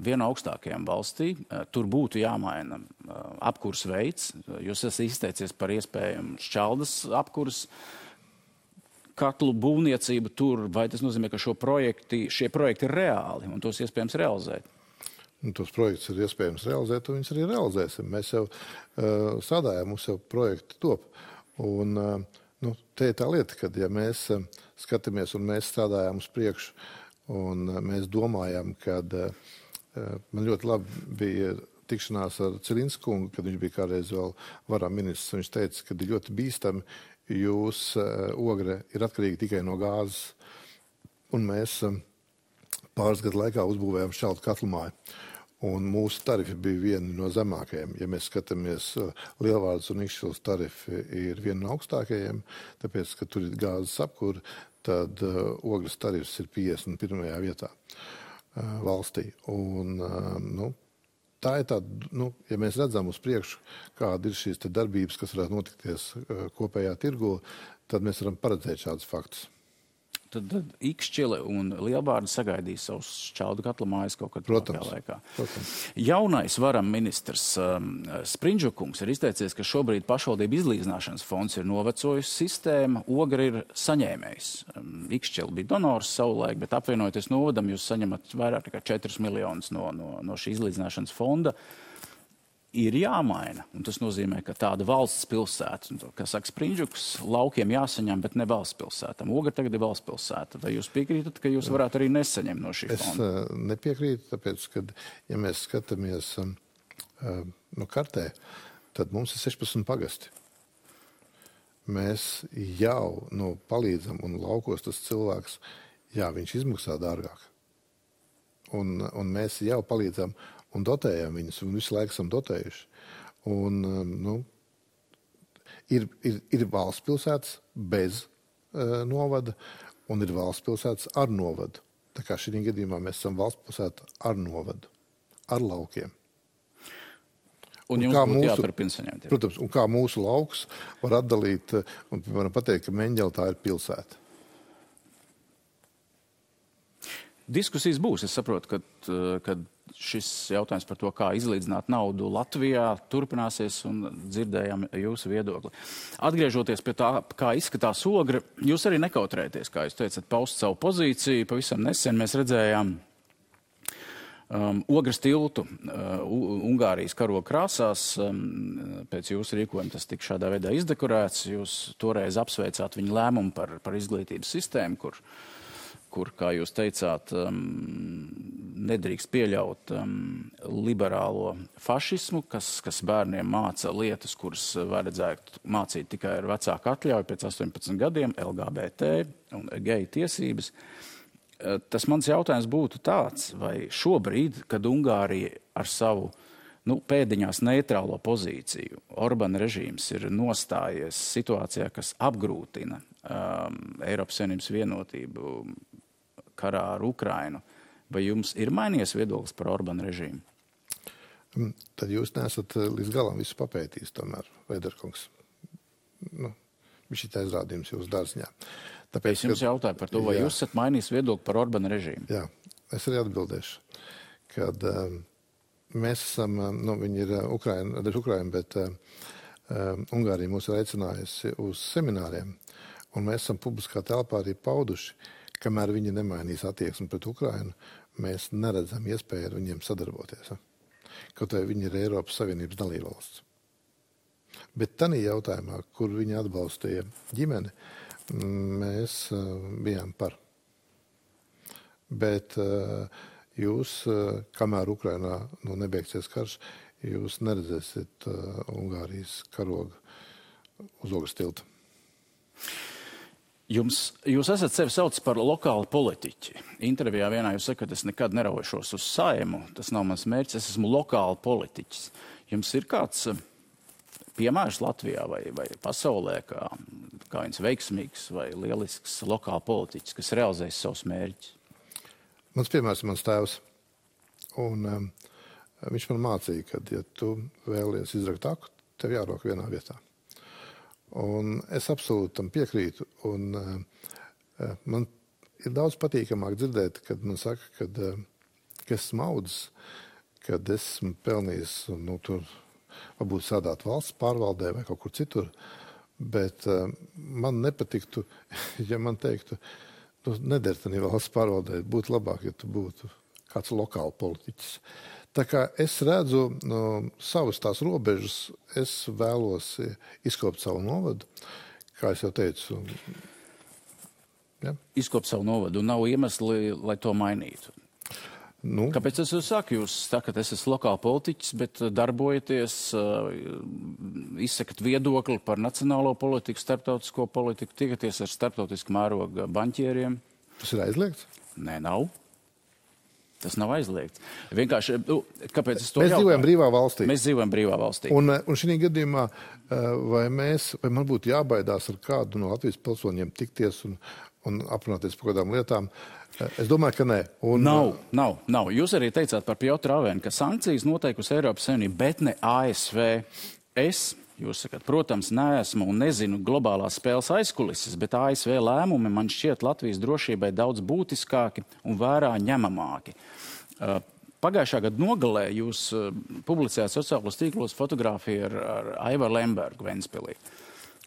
viena augstākajām valstī. Tur būtu jāmaina apkurs veids. Jūs esat izteicies par iespējamu šķeldas apkurs katlu būvniecību tur. Vai tas nozīmē, ka šie projekti ir reāli un tos iespējams realizēt? Tos projektus ir iespējams realizēt, un viņus arī realizēsim. Mēs jau strādājam, mums jau projekti top. Un te ir tā lieta, ka ja mēs skatāmies un mēs strādājām uz priekšu un mēs domājam, kad man ļoti labi bija tikšanās ar Cilinsku kungu, kad viņš bija kādreiz vēl varā ministrs, un viņš teica, ka ir ļoti bīstami, jūs Ogre ir atkarīgi tikai no gāzes, un mēs pāris gadu laikā uzbūvējām šķeltu katlumāju. Un mūsu tarifi bija vieni no zemākajiem. Ja mēs skatāmies, Lielvārdas un Ikšķeles tarifi ir vieni no augstākajiem, tāpēc, ka tur ir gāzes apkura, tad Ogres tarifs ir 51. vietā valstī. Un, tā ir tāda, ja mēs redzam uz priekšu, kāda ir šīs darbības, kas varētu notikties kopējā tirgu, tad mēs varam paredzēt šādus faktus. Tad Ikšķele un Lielvārda sagaidīs savus šķeldu katlamājas kaut kad tuvākajā laikā. Protams. Jaunais varam ministrs Sprindžukungs ir izteicies, ka šobrīd pašvaldību izlīdzināšanas fonds ir novecojis sistēma, Ogre ir saņēmējs. Ikšķele bija donors savulaik, bet apvienojoties novadam, jūs saņemat vairāk nekā 4 miljonus no šī izlīdzināšanas fonda. Ir jāmaina, un tas nozīmē, ka tāda valsts pilsēta, kā saka Sprindžuks, laukiem jāsaņem, bet ne valsts pilsētam. Ogre tagad ir valsts pilsēta. Vai jūs piekrītat, ka jūs varētu arī nesaņemt no šī fonda? Es nepiekrītu, tāpēc, ka, ja mēs skatāmies kartē, tad mums ir 16 pagasti. Mēs jau palīdzam, un laukos tas cilvēks, viņš izmaksā dārgāk. Un mēs jau palīdzam un dotējam viņus, un visu laiku esam dotējuši. Un, ir valsts pilsētas bez novada, un ir valsts pilsētas ar novadu. Tā kā šī gadījumā mēs esam valsts pilsēta ar novadu, ar laukiem. Un jums būtu jāturpina saņemt. Protams, un kā mūsu lauks var atdalīt, un varam pateikt, ka Meņģele tā ir pilsēta. Diskusijas būs. Es saprotu, ka šis jautājums par to, kā izlīdzināt naudu Latvijā, turpināsies, un dzirdējām jūsu viedokli. Atgriežoties pie tā, kā izskatās Ogre, jūs arī nekautrēties, kā jūs teicat, paust savu pozīciju. Pavisam nesen mēs redzējām Ogres tiltu Ungārijas karoga krāsās. Pēc jūsu rīkojuma tas tika šādā veidā izdekorēts. Jūs toreiz apsveicāt viņu lēmumu par izglītības sistēmu, kur, kā jūs teicāt, nedrīkst pieļaut liberālo fašismu, kas bērniem māca lietas, kuras vajadzētu mācīt tikai ar vecāku atļauju pēc 18 gadiem, LGBT un geju tiesības. Tas mans jautājums būtu tāds, vai šobrīd, kad Ungārija ar savu pēdiņās neitrālo pozīciju, Orbana režīms ir nostājies situācijā, kas apgrūtina Eiropas Savienības vienotību karā ar Ukrainu, vai jums ir mainījies viedoklis par Orbana režīmu? Tad jūs neesat līdz galam visu papētījis tomēr, Veiderkungs. Viņš ir aizrādījums jūsu dārziņā. Tāpēc, es jums jautāju par to, vai jūs esat mainījis viedokli par Orbana režīmu? Jā, es arī atbildēšu, kad mēs esam, viņi ir Ukraina, bet Ungārija mūs ir aicinājusi uz semināriem, un mēs esam publiskā telpā arī pauduši, kamēr viņi nemainīs attieksmi pret Ukrainu, mēs neredzam iespēju ar viņiem sadarboties. Kaut vai viņi ir Eiropas Savienības dalībvalsts. Bet tanī jautājumā, kur viņi atbalstīja ģimeni, mēs bijām par. Bet jūs, kamēr Ukrainā nebeigsies karš, jūs neredzēsiet Ungārijas karogu uz Ogres tilta. Jūs esat sevi sauc par lokālu politiķi. Intervijā vienā jūs sakat, es nekad neraušos uz Saimu, tas nav mans mērķis, es esmu lokāli politiķis. Jums ir kāds piemērs Latvijā vai pasaulē, kā viens veiksmīgs vai lielisks lokāli politiķis, kas realizēs savus mērķus? Mans piemērs ir mans tēvs. Un viņš man mācīja, ka, ja tu vēlies izrakt aku, tev jārok vienā vietā. Un es absolūti tam piekrītu. Un man ir daudz patīkamāk dzirdēt, kad man saka, ka esmu audzis, kad esmu pelnījis, tur varbūt strādāt valsts pārvaldē vai kaut kur citur. Bet man nepatiktu, ja man teiktu, neder tanī valsts pārvaldē, būtu labāk, ja tu būtu kāds lokāli politiķis. Tā kā es redzu savas tās robežas, es vēlos izkopt savu novadu, kā es jau teicu. Ja? Izkopt savu novadu un nav iemesli, lai to mainītu. Kāpēc es jūs saku? Jūs sakat, es esmu lokāli politiķis, bet darbojaties, izsakat viedokli par nacionālo politiku, starptautisko politiku, tikaties ar starptautisku mēroga banķieriem. Tas ir aizliegts? Nē, nav. Tas nav aizliegts. Vienkārši, kāpēc es to Mēs dzīvojam brīvā valstī. Mēs dzīvojam brīvā valstī. Un šī gadījumā, vai man būtu jābaidās ar kādu no Latvijas pilsoņiem tikties un aprunāties par kādām lietām? Es domāju, ka nē. Nav. Jūs arī teicāt par Piotru Avenu, ka sankcijas noteikusi Eiropas Savienība, bet ne ASV. Jūs sakat, protams, neesmu un nezinu globālās spēles aizkulises, bet ASV lēmumi man šķiet Latvijas drošībai daudz būtiskāki un vērā ņemamāki. Pagājušā gada nogalē jūs publicējāt sociālos tīklos fotogrāfiju ar Aivaru Lembergu Ventspilī,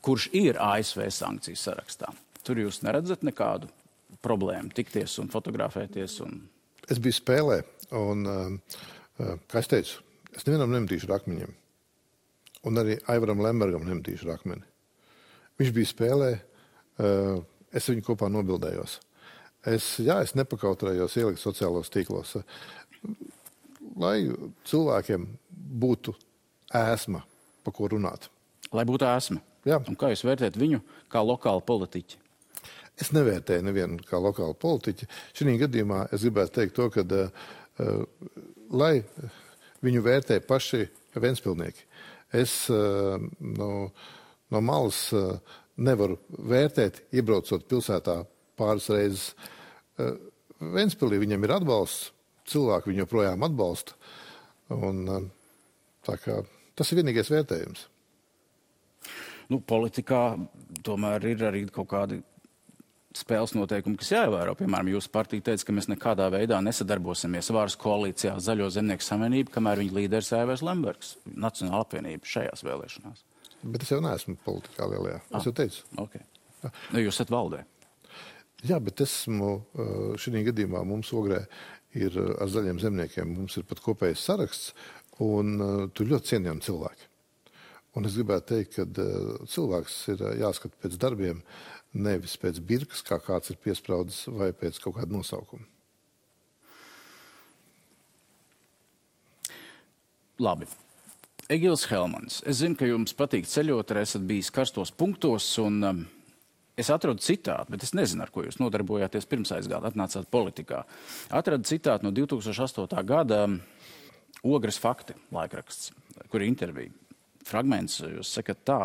kurš ir ASV sankciju sarakstā. Tur jūs neredzat nekādu problēmu tikties un fotografēties? Es biju spēlē un, kā es teicu, es nevienam nemetīšu ar akmeņiem. Un arī Aivaram Lembergam nemetīšu ar akmeni. Viņš bija spēlē, es viņu kopā nobildējos. Es nepakautrējos ielikt sociālos tīklos, lai cilvēkiem būtu ēsma, pa ko runāt. Lai būtu ēsma? Jā. Un kā jūs vērtējat viņu kā lokālu politiķi? Es nevērtēju nevienu kā lokālu politiķi. Šī gadījumā es gribētu teikt to, ka lai viņu vērtē paši ventspilnieki. Es no malas nevaru vērtēt, iebraucot pilsētā pāris reizes. Ventspilī viņam ir atbalsts, cilvēki viņu joprojām atbalsta. Un, tā kā, tas ir vienīgais vērtējums. Politikā tomēr ir arī kaut kādi spēles noteikumi, kas jāievēro. Piemēram, jūsu partija teica, ka mēs nekādā veidā nesadarbosimies varas koalīcijā Zaļo zemnieku savienību, kamēr viņa līderis Aivars Lembergs, Nacionāla apvienība šajās vēlēšanās. Bet es jau neesmu politikā lielajā. Es jau teicu. Okay. Jūs esat valdē. Jā, bet esmu šī gadījumā mums Ogrē ir ar Zaļiem zemniekiem, mums ir pat kopējs saraksts, un tur ļoti cienījami cilvēki. Un es gribētu teikt, ka cilvēks ir jāskat pēc darbiem, nevis pēc birkas, kā kāds ir piespraudis, vai pēc kaut kāda nosaukuma. Labi. Egils Helmans, es zinu, ka jums patīk ceļot, arī esat bijis karstos punktos, un es atradu citātu, bet es nezinu, ar ko jūs nodarbojāties pirms aizgāda, atnācāt politikā. Atradu citātu no 2008. gada Ogres fakti laikraksts, kur ir intervija. Fragments, jūs sakat tā.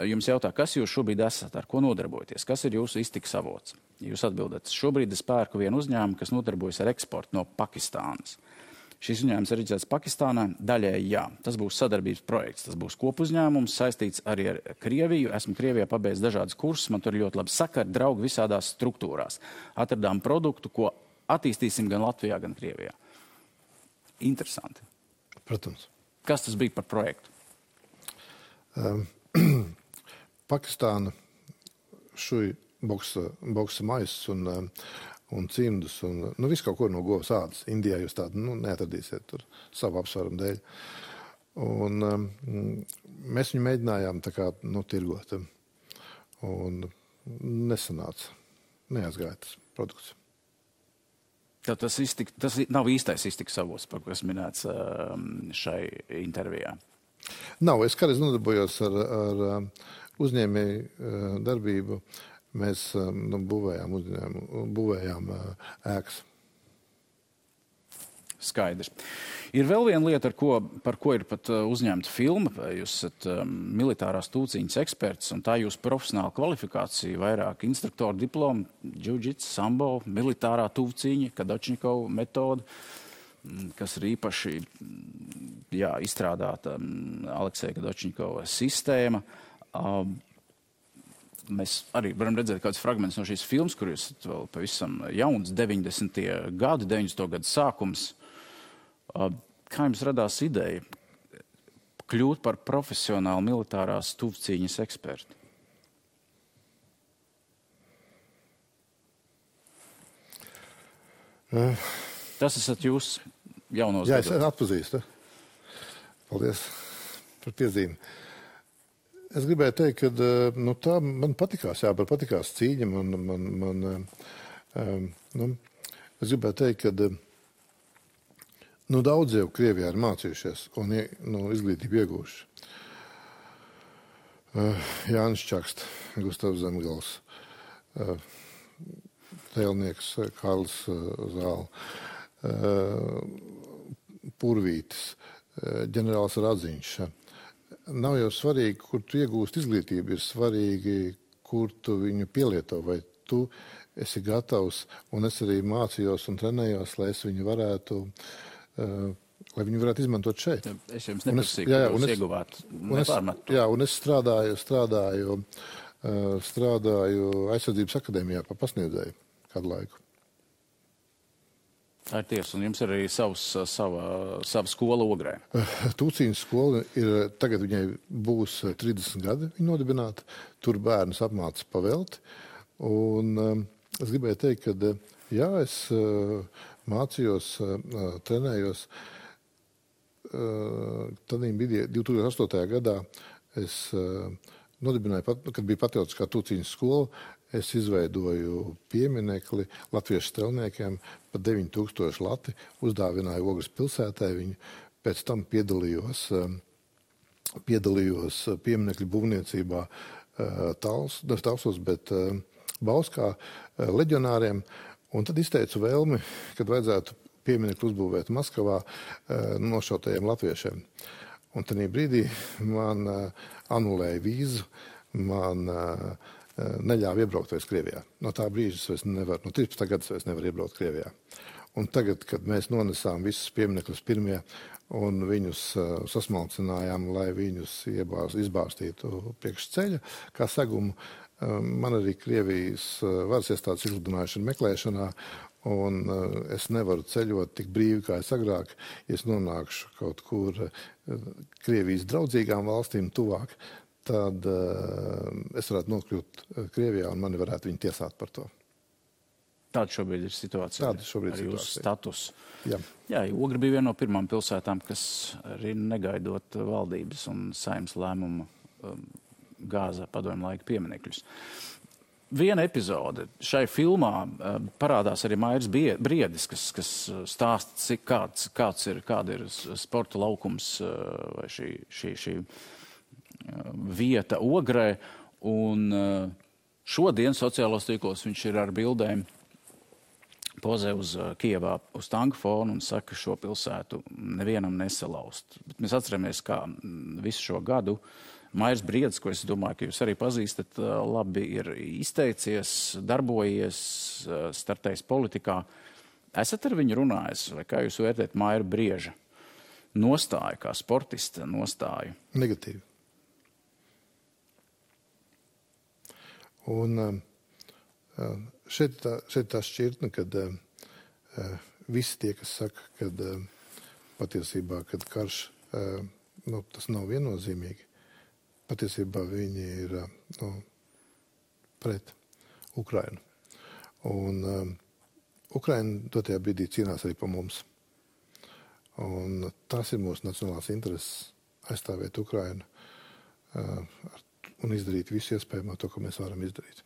Jums jautā, kas jūs šobrīd esat, ar ko nodarbojaties, kas ir jūsu iztikas avots? Jūs atbildat, šobrīd es pērku vienu uzņēmumu, kas nodarbojas ar eksportu no Pakistānas. Šis uzņēmums ir reģistrēts Pakistānā, daļēji jā. Tas būs sadarbības projekts, tas būs kopuzņēmums, saistīts arī ar Krieviju. Esmu Krievijā pabeidzis dažādas kursus, man tur ļoti labi sakari, draugi visādās struktūrās. Atradām produktu, ko attīstīsim gan Latvijā, gan Krievijā. Interesanti. Protams. Kas tas bija par projektu? Pakistāna šuj boksa maisus un cimdus un visu kaut ko no govs ādas. Indijā jūs tādu neatradīsiet tur savu apsvērumu dēļ. Un mēs viņu mēģinājām tā kā tirgot. Un nesanāca. Neaizgāja tas produkts. Tad tas nav īstais iztikas avots, par kas minēts šai intervijā. Nav, es kādreiz nodarbojos ar uzņēmēju darbību. Mēs būvējām ēkas. Skaidrs. Ir vēl viena lieta, par ko ir pat uzņemta filma. Jūs esat militārās tūciņas eksperts, un tā jūsu profesionāla kvalifikācija, vairāk instruktoru diplomu, džudžits, sambo, militārā tūciņa, Kadačnikova metoda, kas ir īpaši izstrādāta Alekseja Kadačnikova sistēma. Mēs arī varam redzēt kādus fragmentus no šīs filmas, kur jūs esat vēl pavisam jauns, 90. gadu sākums. Kā jums radās ideja kļūt par profesionālu militārās tuvcīņas ekspertu? Tas esat jūs jaunos gados. Jā, es atpazīstu. Paldies par piezīmi. Es gribēju teikt, ka tā man patikās, man patikās cīņa. Es gribēju teikt, ka daudz jau Krievijā ir mācījušies un izglītību iegūši. Jānis Čakste, Gustavs Zemgals, tēlnieks Karls Zāle, Purvītis, ģenerālis Radziņš. Nav jau svarīgi, kur tu iegūst izglītību, ir svarīgi, kur tu viņu pielieto, vai tu esi gatavs, un es arī mācījos un trenējos, lai viņi varētu izmantot šeit. Es jums neprasīju, ka jūs ieguvāt nepārmetu. Jā, un es strādāju aizsardzības akadēmijā par pasniedzēju kādu laiku. Tā ir tiesa, un jums ir arī sava skola Ogrē. Tūciņas skola tagad viņai būs 30 gadi viņa nodibināta. Tur bērnus apmāca pavelti. Un es gribēju teikt, ka es mācījos, trenējos. Tad 2008. gadā es nodibināju, kad bija patriotiskā tūciņas skola, es izveidoju pieminekli latviešu strelniekiem par 9000 lati, uzdāvināju Ogres pilsētai viņu, pēc tam piedalījos pieminekļu būvniecībā Talsos, bet Bauskā leģionāriem, un tad izteicu vēlmi, kad vajadzētu pieminekli uzbūvēt Maskavā nošautajiem latviešiem. Un tajā brīdī man anulēja vīzu, man neļāva iebraukt vairs Krievijā. No tā brīža es vairs nevaru, no 13. gada es vairs nevaru iebraukt Krievijā. Un tagad, kad mēs nonesām visus pieminekļus pirmie un viņus sasmalcinājām, lai viņus izbārstītu priekš ceļa, kā segumu, man arī Krievijas varas iestādes izsludinājuši meklēšanā, un es nevaru ceļot tik brīvi, kā es agrāk. Ja es nonākšu kaut kur Krievijas draudzīgām valstīm tuvāk, tad es varētu nokļūt Krievijā un mani varētu viņi tiesāt par to. Tāda šobrīd ir situācija. Tāda šobrīd ir jūsu status. Jā, Ogra bija viena no pirmām pilsētām, kas arī negaidot valdības un saimnes lēmumu gāza padomju laika pieminekļus. Viena epizode šai filmā parādās arī Mairis Briedis, kas stāsta, kāda ir sporta laukums vai šī vieta Ogrē. Un šodien sociālos tīklos viņš ir ar bildēm pozē uz Kijevā uz tanku fonu un saka, šo pilsētu nevienam nesalauzt. Bet mēs atceramies, kā visu šo gadu Mairis Briedis, ko es domāju, ka jūs arī pazīstat, labi ir izteicies, darbojies, startējis politikā. Esat ar viņu runājis, vai kā jūs vērtējat Maira Brieža nostāju, kā sportista nostāju? Negatīvi. Un šeit tā šķirtne, kad visi tie, kas saka, kad patiesībā, kad karš, tas nav viennozīmīgi, patiesībā viņi ir pret Ukrainu. Un Ukraina dotajā brīdī cīnās arī par mums. Un tas ir mūsu nacionālās intereses aizstāvēt Ukrainu un izdarīt visu iespējamo to, ko mēs varam izdarīt.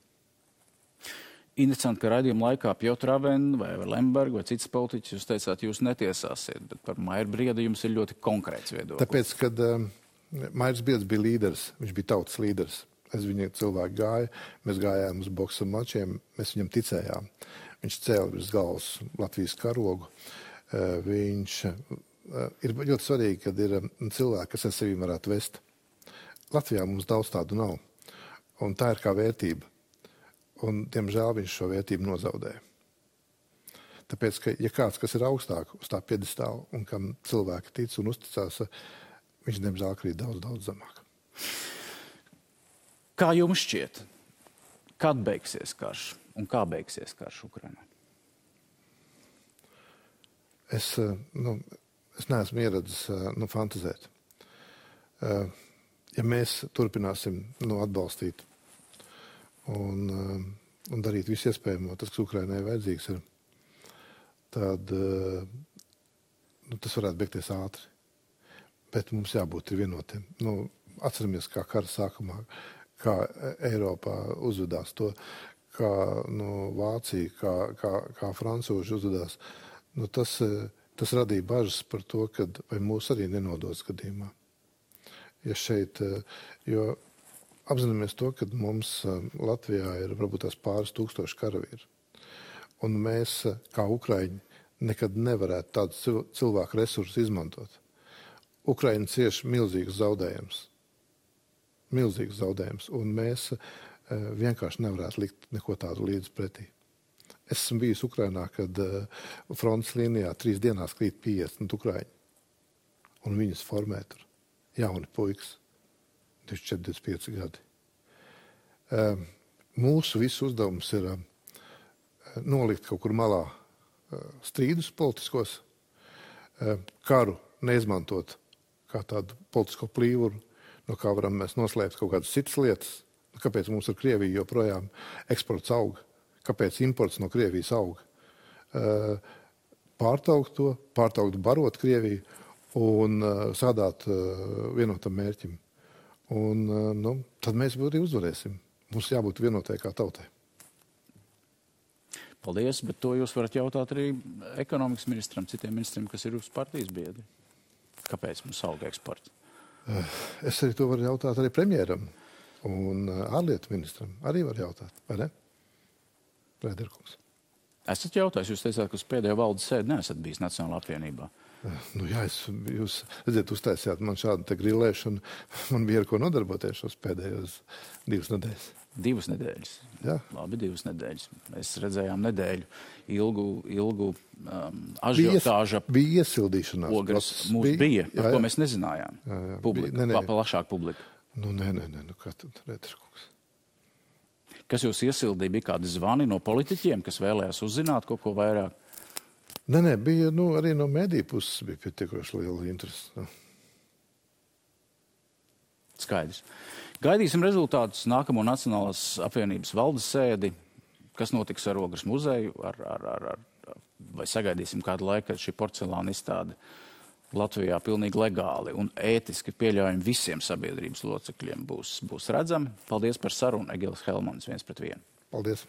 Interesanti, ka raidījuma laikā Piotr Avena vai Lemberga vai citas politiķis, jūs teicāt, jūs netiesāsiet, bet par Mairu Briedu jums ir ļoti konkrēts viedoklis. Tāpēc, kad Mairs Briedis bija līderis, viņš bija tautas līderis. Es viņu cilvēku gāju, mēs gājām uz boksa mačiem, mēs viņam ticējām. Viņš cēla virs galvas Latvijas karogu. Viņš ir ļoti svarīgi, kad ir cilvēki, kas ar sevi varētu vest. Latvijā mums daudz tādu nav. Un tā ir kā vērtība. Un, diemžēl, viņš šo vērtību nozaudēja. Tāpēc, ka, ja kāds, kas ir augstāk uz tā piedestāla un kam cilvēki tic un uzticās, viņš, diemžēl, krīt daudz, daudz zemāk. Kā jums šķiet, kad beigsies karš un kā beigsies karš Ukrainā? Es neesmu ieradzis fantazēt. Ja mēs turpināsim atbalstīt un darīt visu iespējamo, tas, kas Ukrainai vajadzīgs ir, tad tas varētu beigties ātri. Bet mums jābūt vienotiem. Atceramies, kā kara sākumā, kā Eiropā uzvedās to, kā Vācija, kā francūži uzvedās. Tas radīja bažas par to, vai mūs arī nenodos gadījumā. Jo apzināmies to, ka mums Latvijā ir varbūt tās pāris tūkstoši karavīri. Un mēs, kā Ukraiņi, nekad nevarētu tādus cilvēku resursus izmantot. Ukraina cieš milzīgus zaudējumus. Milzīgus zaudējumus. Un mēs vienkārši nevarētu likt neko tādu līdz pretī. Es esmu bijis Ukrainā, kad frontes līnijā 3 dienās krīt 50 Ukraiņi. Un viņus formē tur jauni puikas. 24-25 gadi. Mūsu visu uzdevums ir nolikt kaut kur malā strīdus politiskos, karu neizmantot kā tādu politisko plīvuru, no kā varam mēs noslēpt kaut kādas citas lietas. Kāpēc mums ar Krieviju joprojām eksports auga? Kāpēc imports no Krievijas auga? Pārtraukt barot Krieviju un sādāt vienotam mērķim. Un tad mēs arī uzvarēsim. Mums jābūt vienotai kā tautai. Paldies, bet to jūs varat jautāt arī ekonomikas ministram, citiem ministriem, kas ir uz partijas biedri. Kāpēc mums auga eksports? Es arī to varu jautāt arī premjeram un ārlietu ministram. Arī var jautāt, vai ne? Prēderkungs. Esat jautājis, jūs teicāt, ka uz pēdējo valdes sēdi neesat bijis Nacionālā apvienībā. Jūs redziet, uztaisījāt man šādu te grilēšanu. Man bija ar ko nodarboties šos pēdējos 2 nedēļas. 2 nedēļas? Jā. Labi, 2 nedēļas. Mēs redzējām nedēļu ilgu ažiotāža. Bija iesildīšanās. Ogres mūs bija, par ko mēs nezinājām. Jā. Plašāk publika. Nē, kā tad, Rēderkungs? Kas jūs iesildīja? Bija kādi zvani no politiķiem, kas vēlējās uzzināt kaut ko vairāk? Nē, bija arī no mediju puses bija pietiekoši liela interese. Skaidrs. Gaidīsim rezultātus nākamo Nacionālās apvienības valdes sēdi. Kas notiks ar Ogres muzeju? Vai sagaidīsim kādu laiku, kad šī porcelāna izstāde Latvijā pilnīgi legāli un ētiski pieļaujami visiem sabiedrības locekļiem būs redzami? Paldies par sarunu. Egilis Helmans, 1:1. Paldies.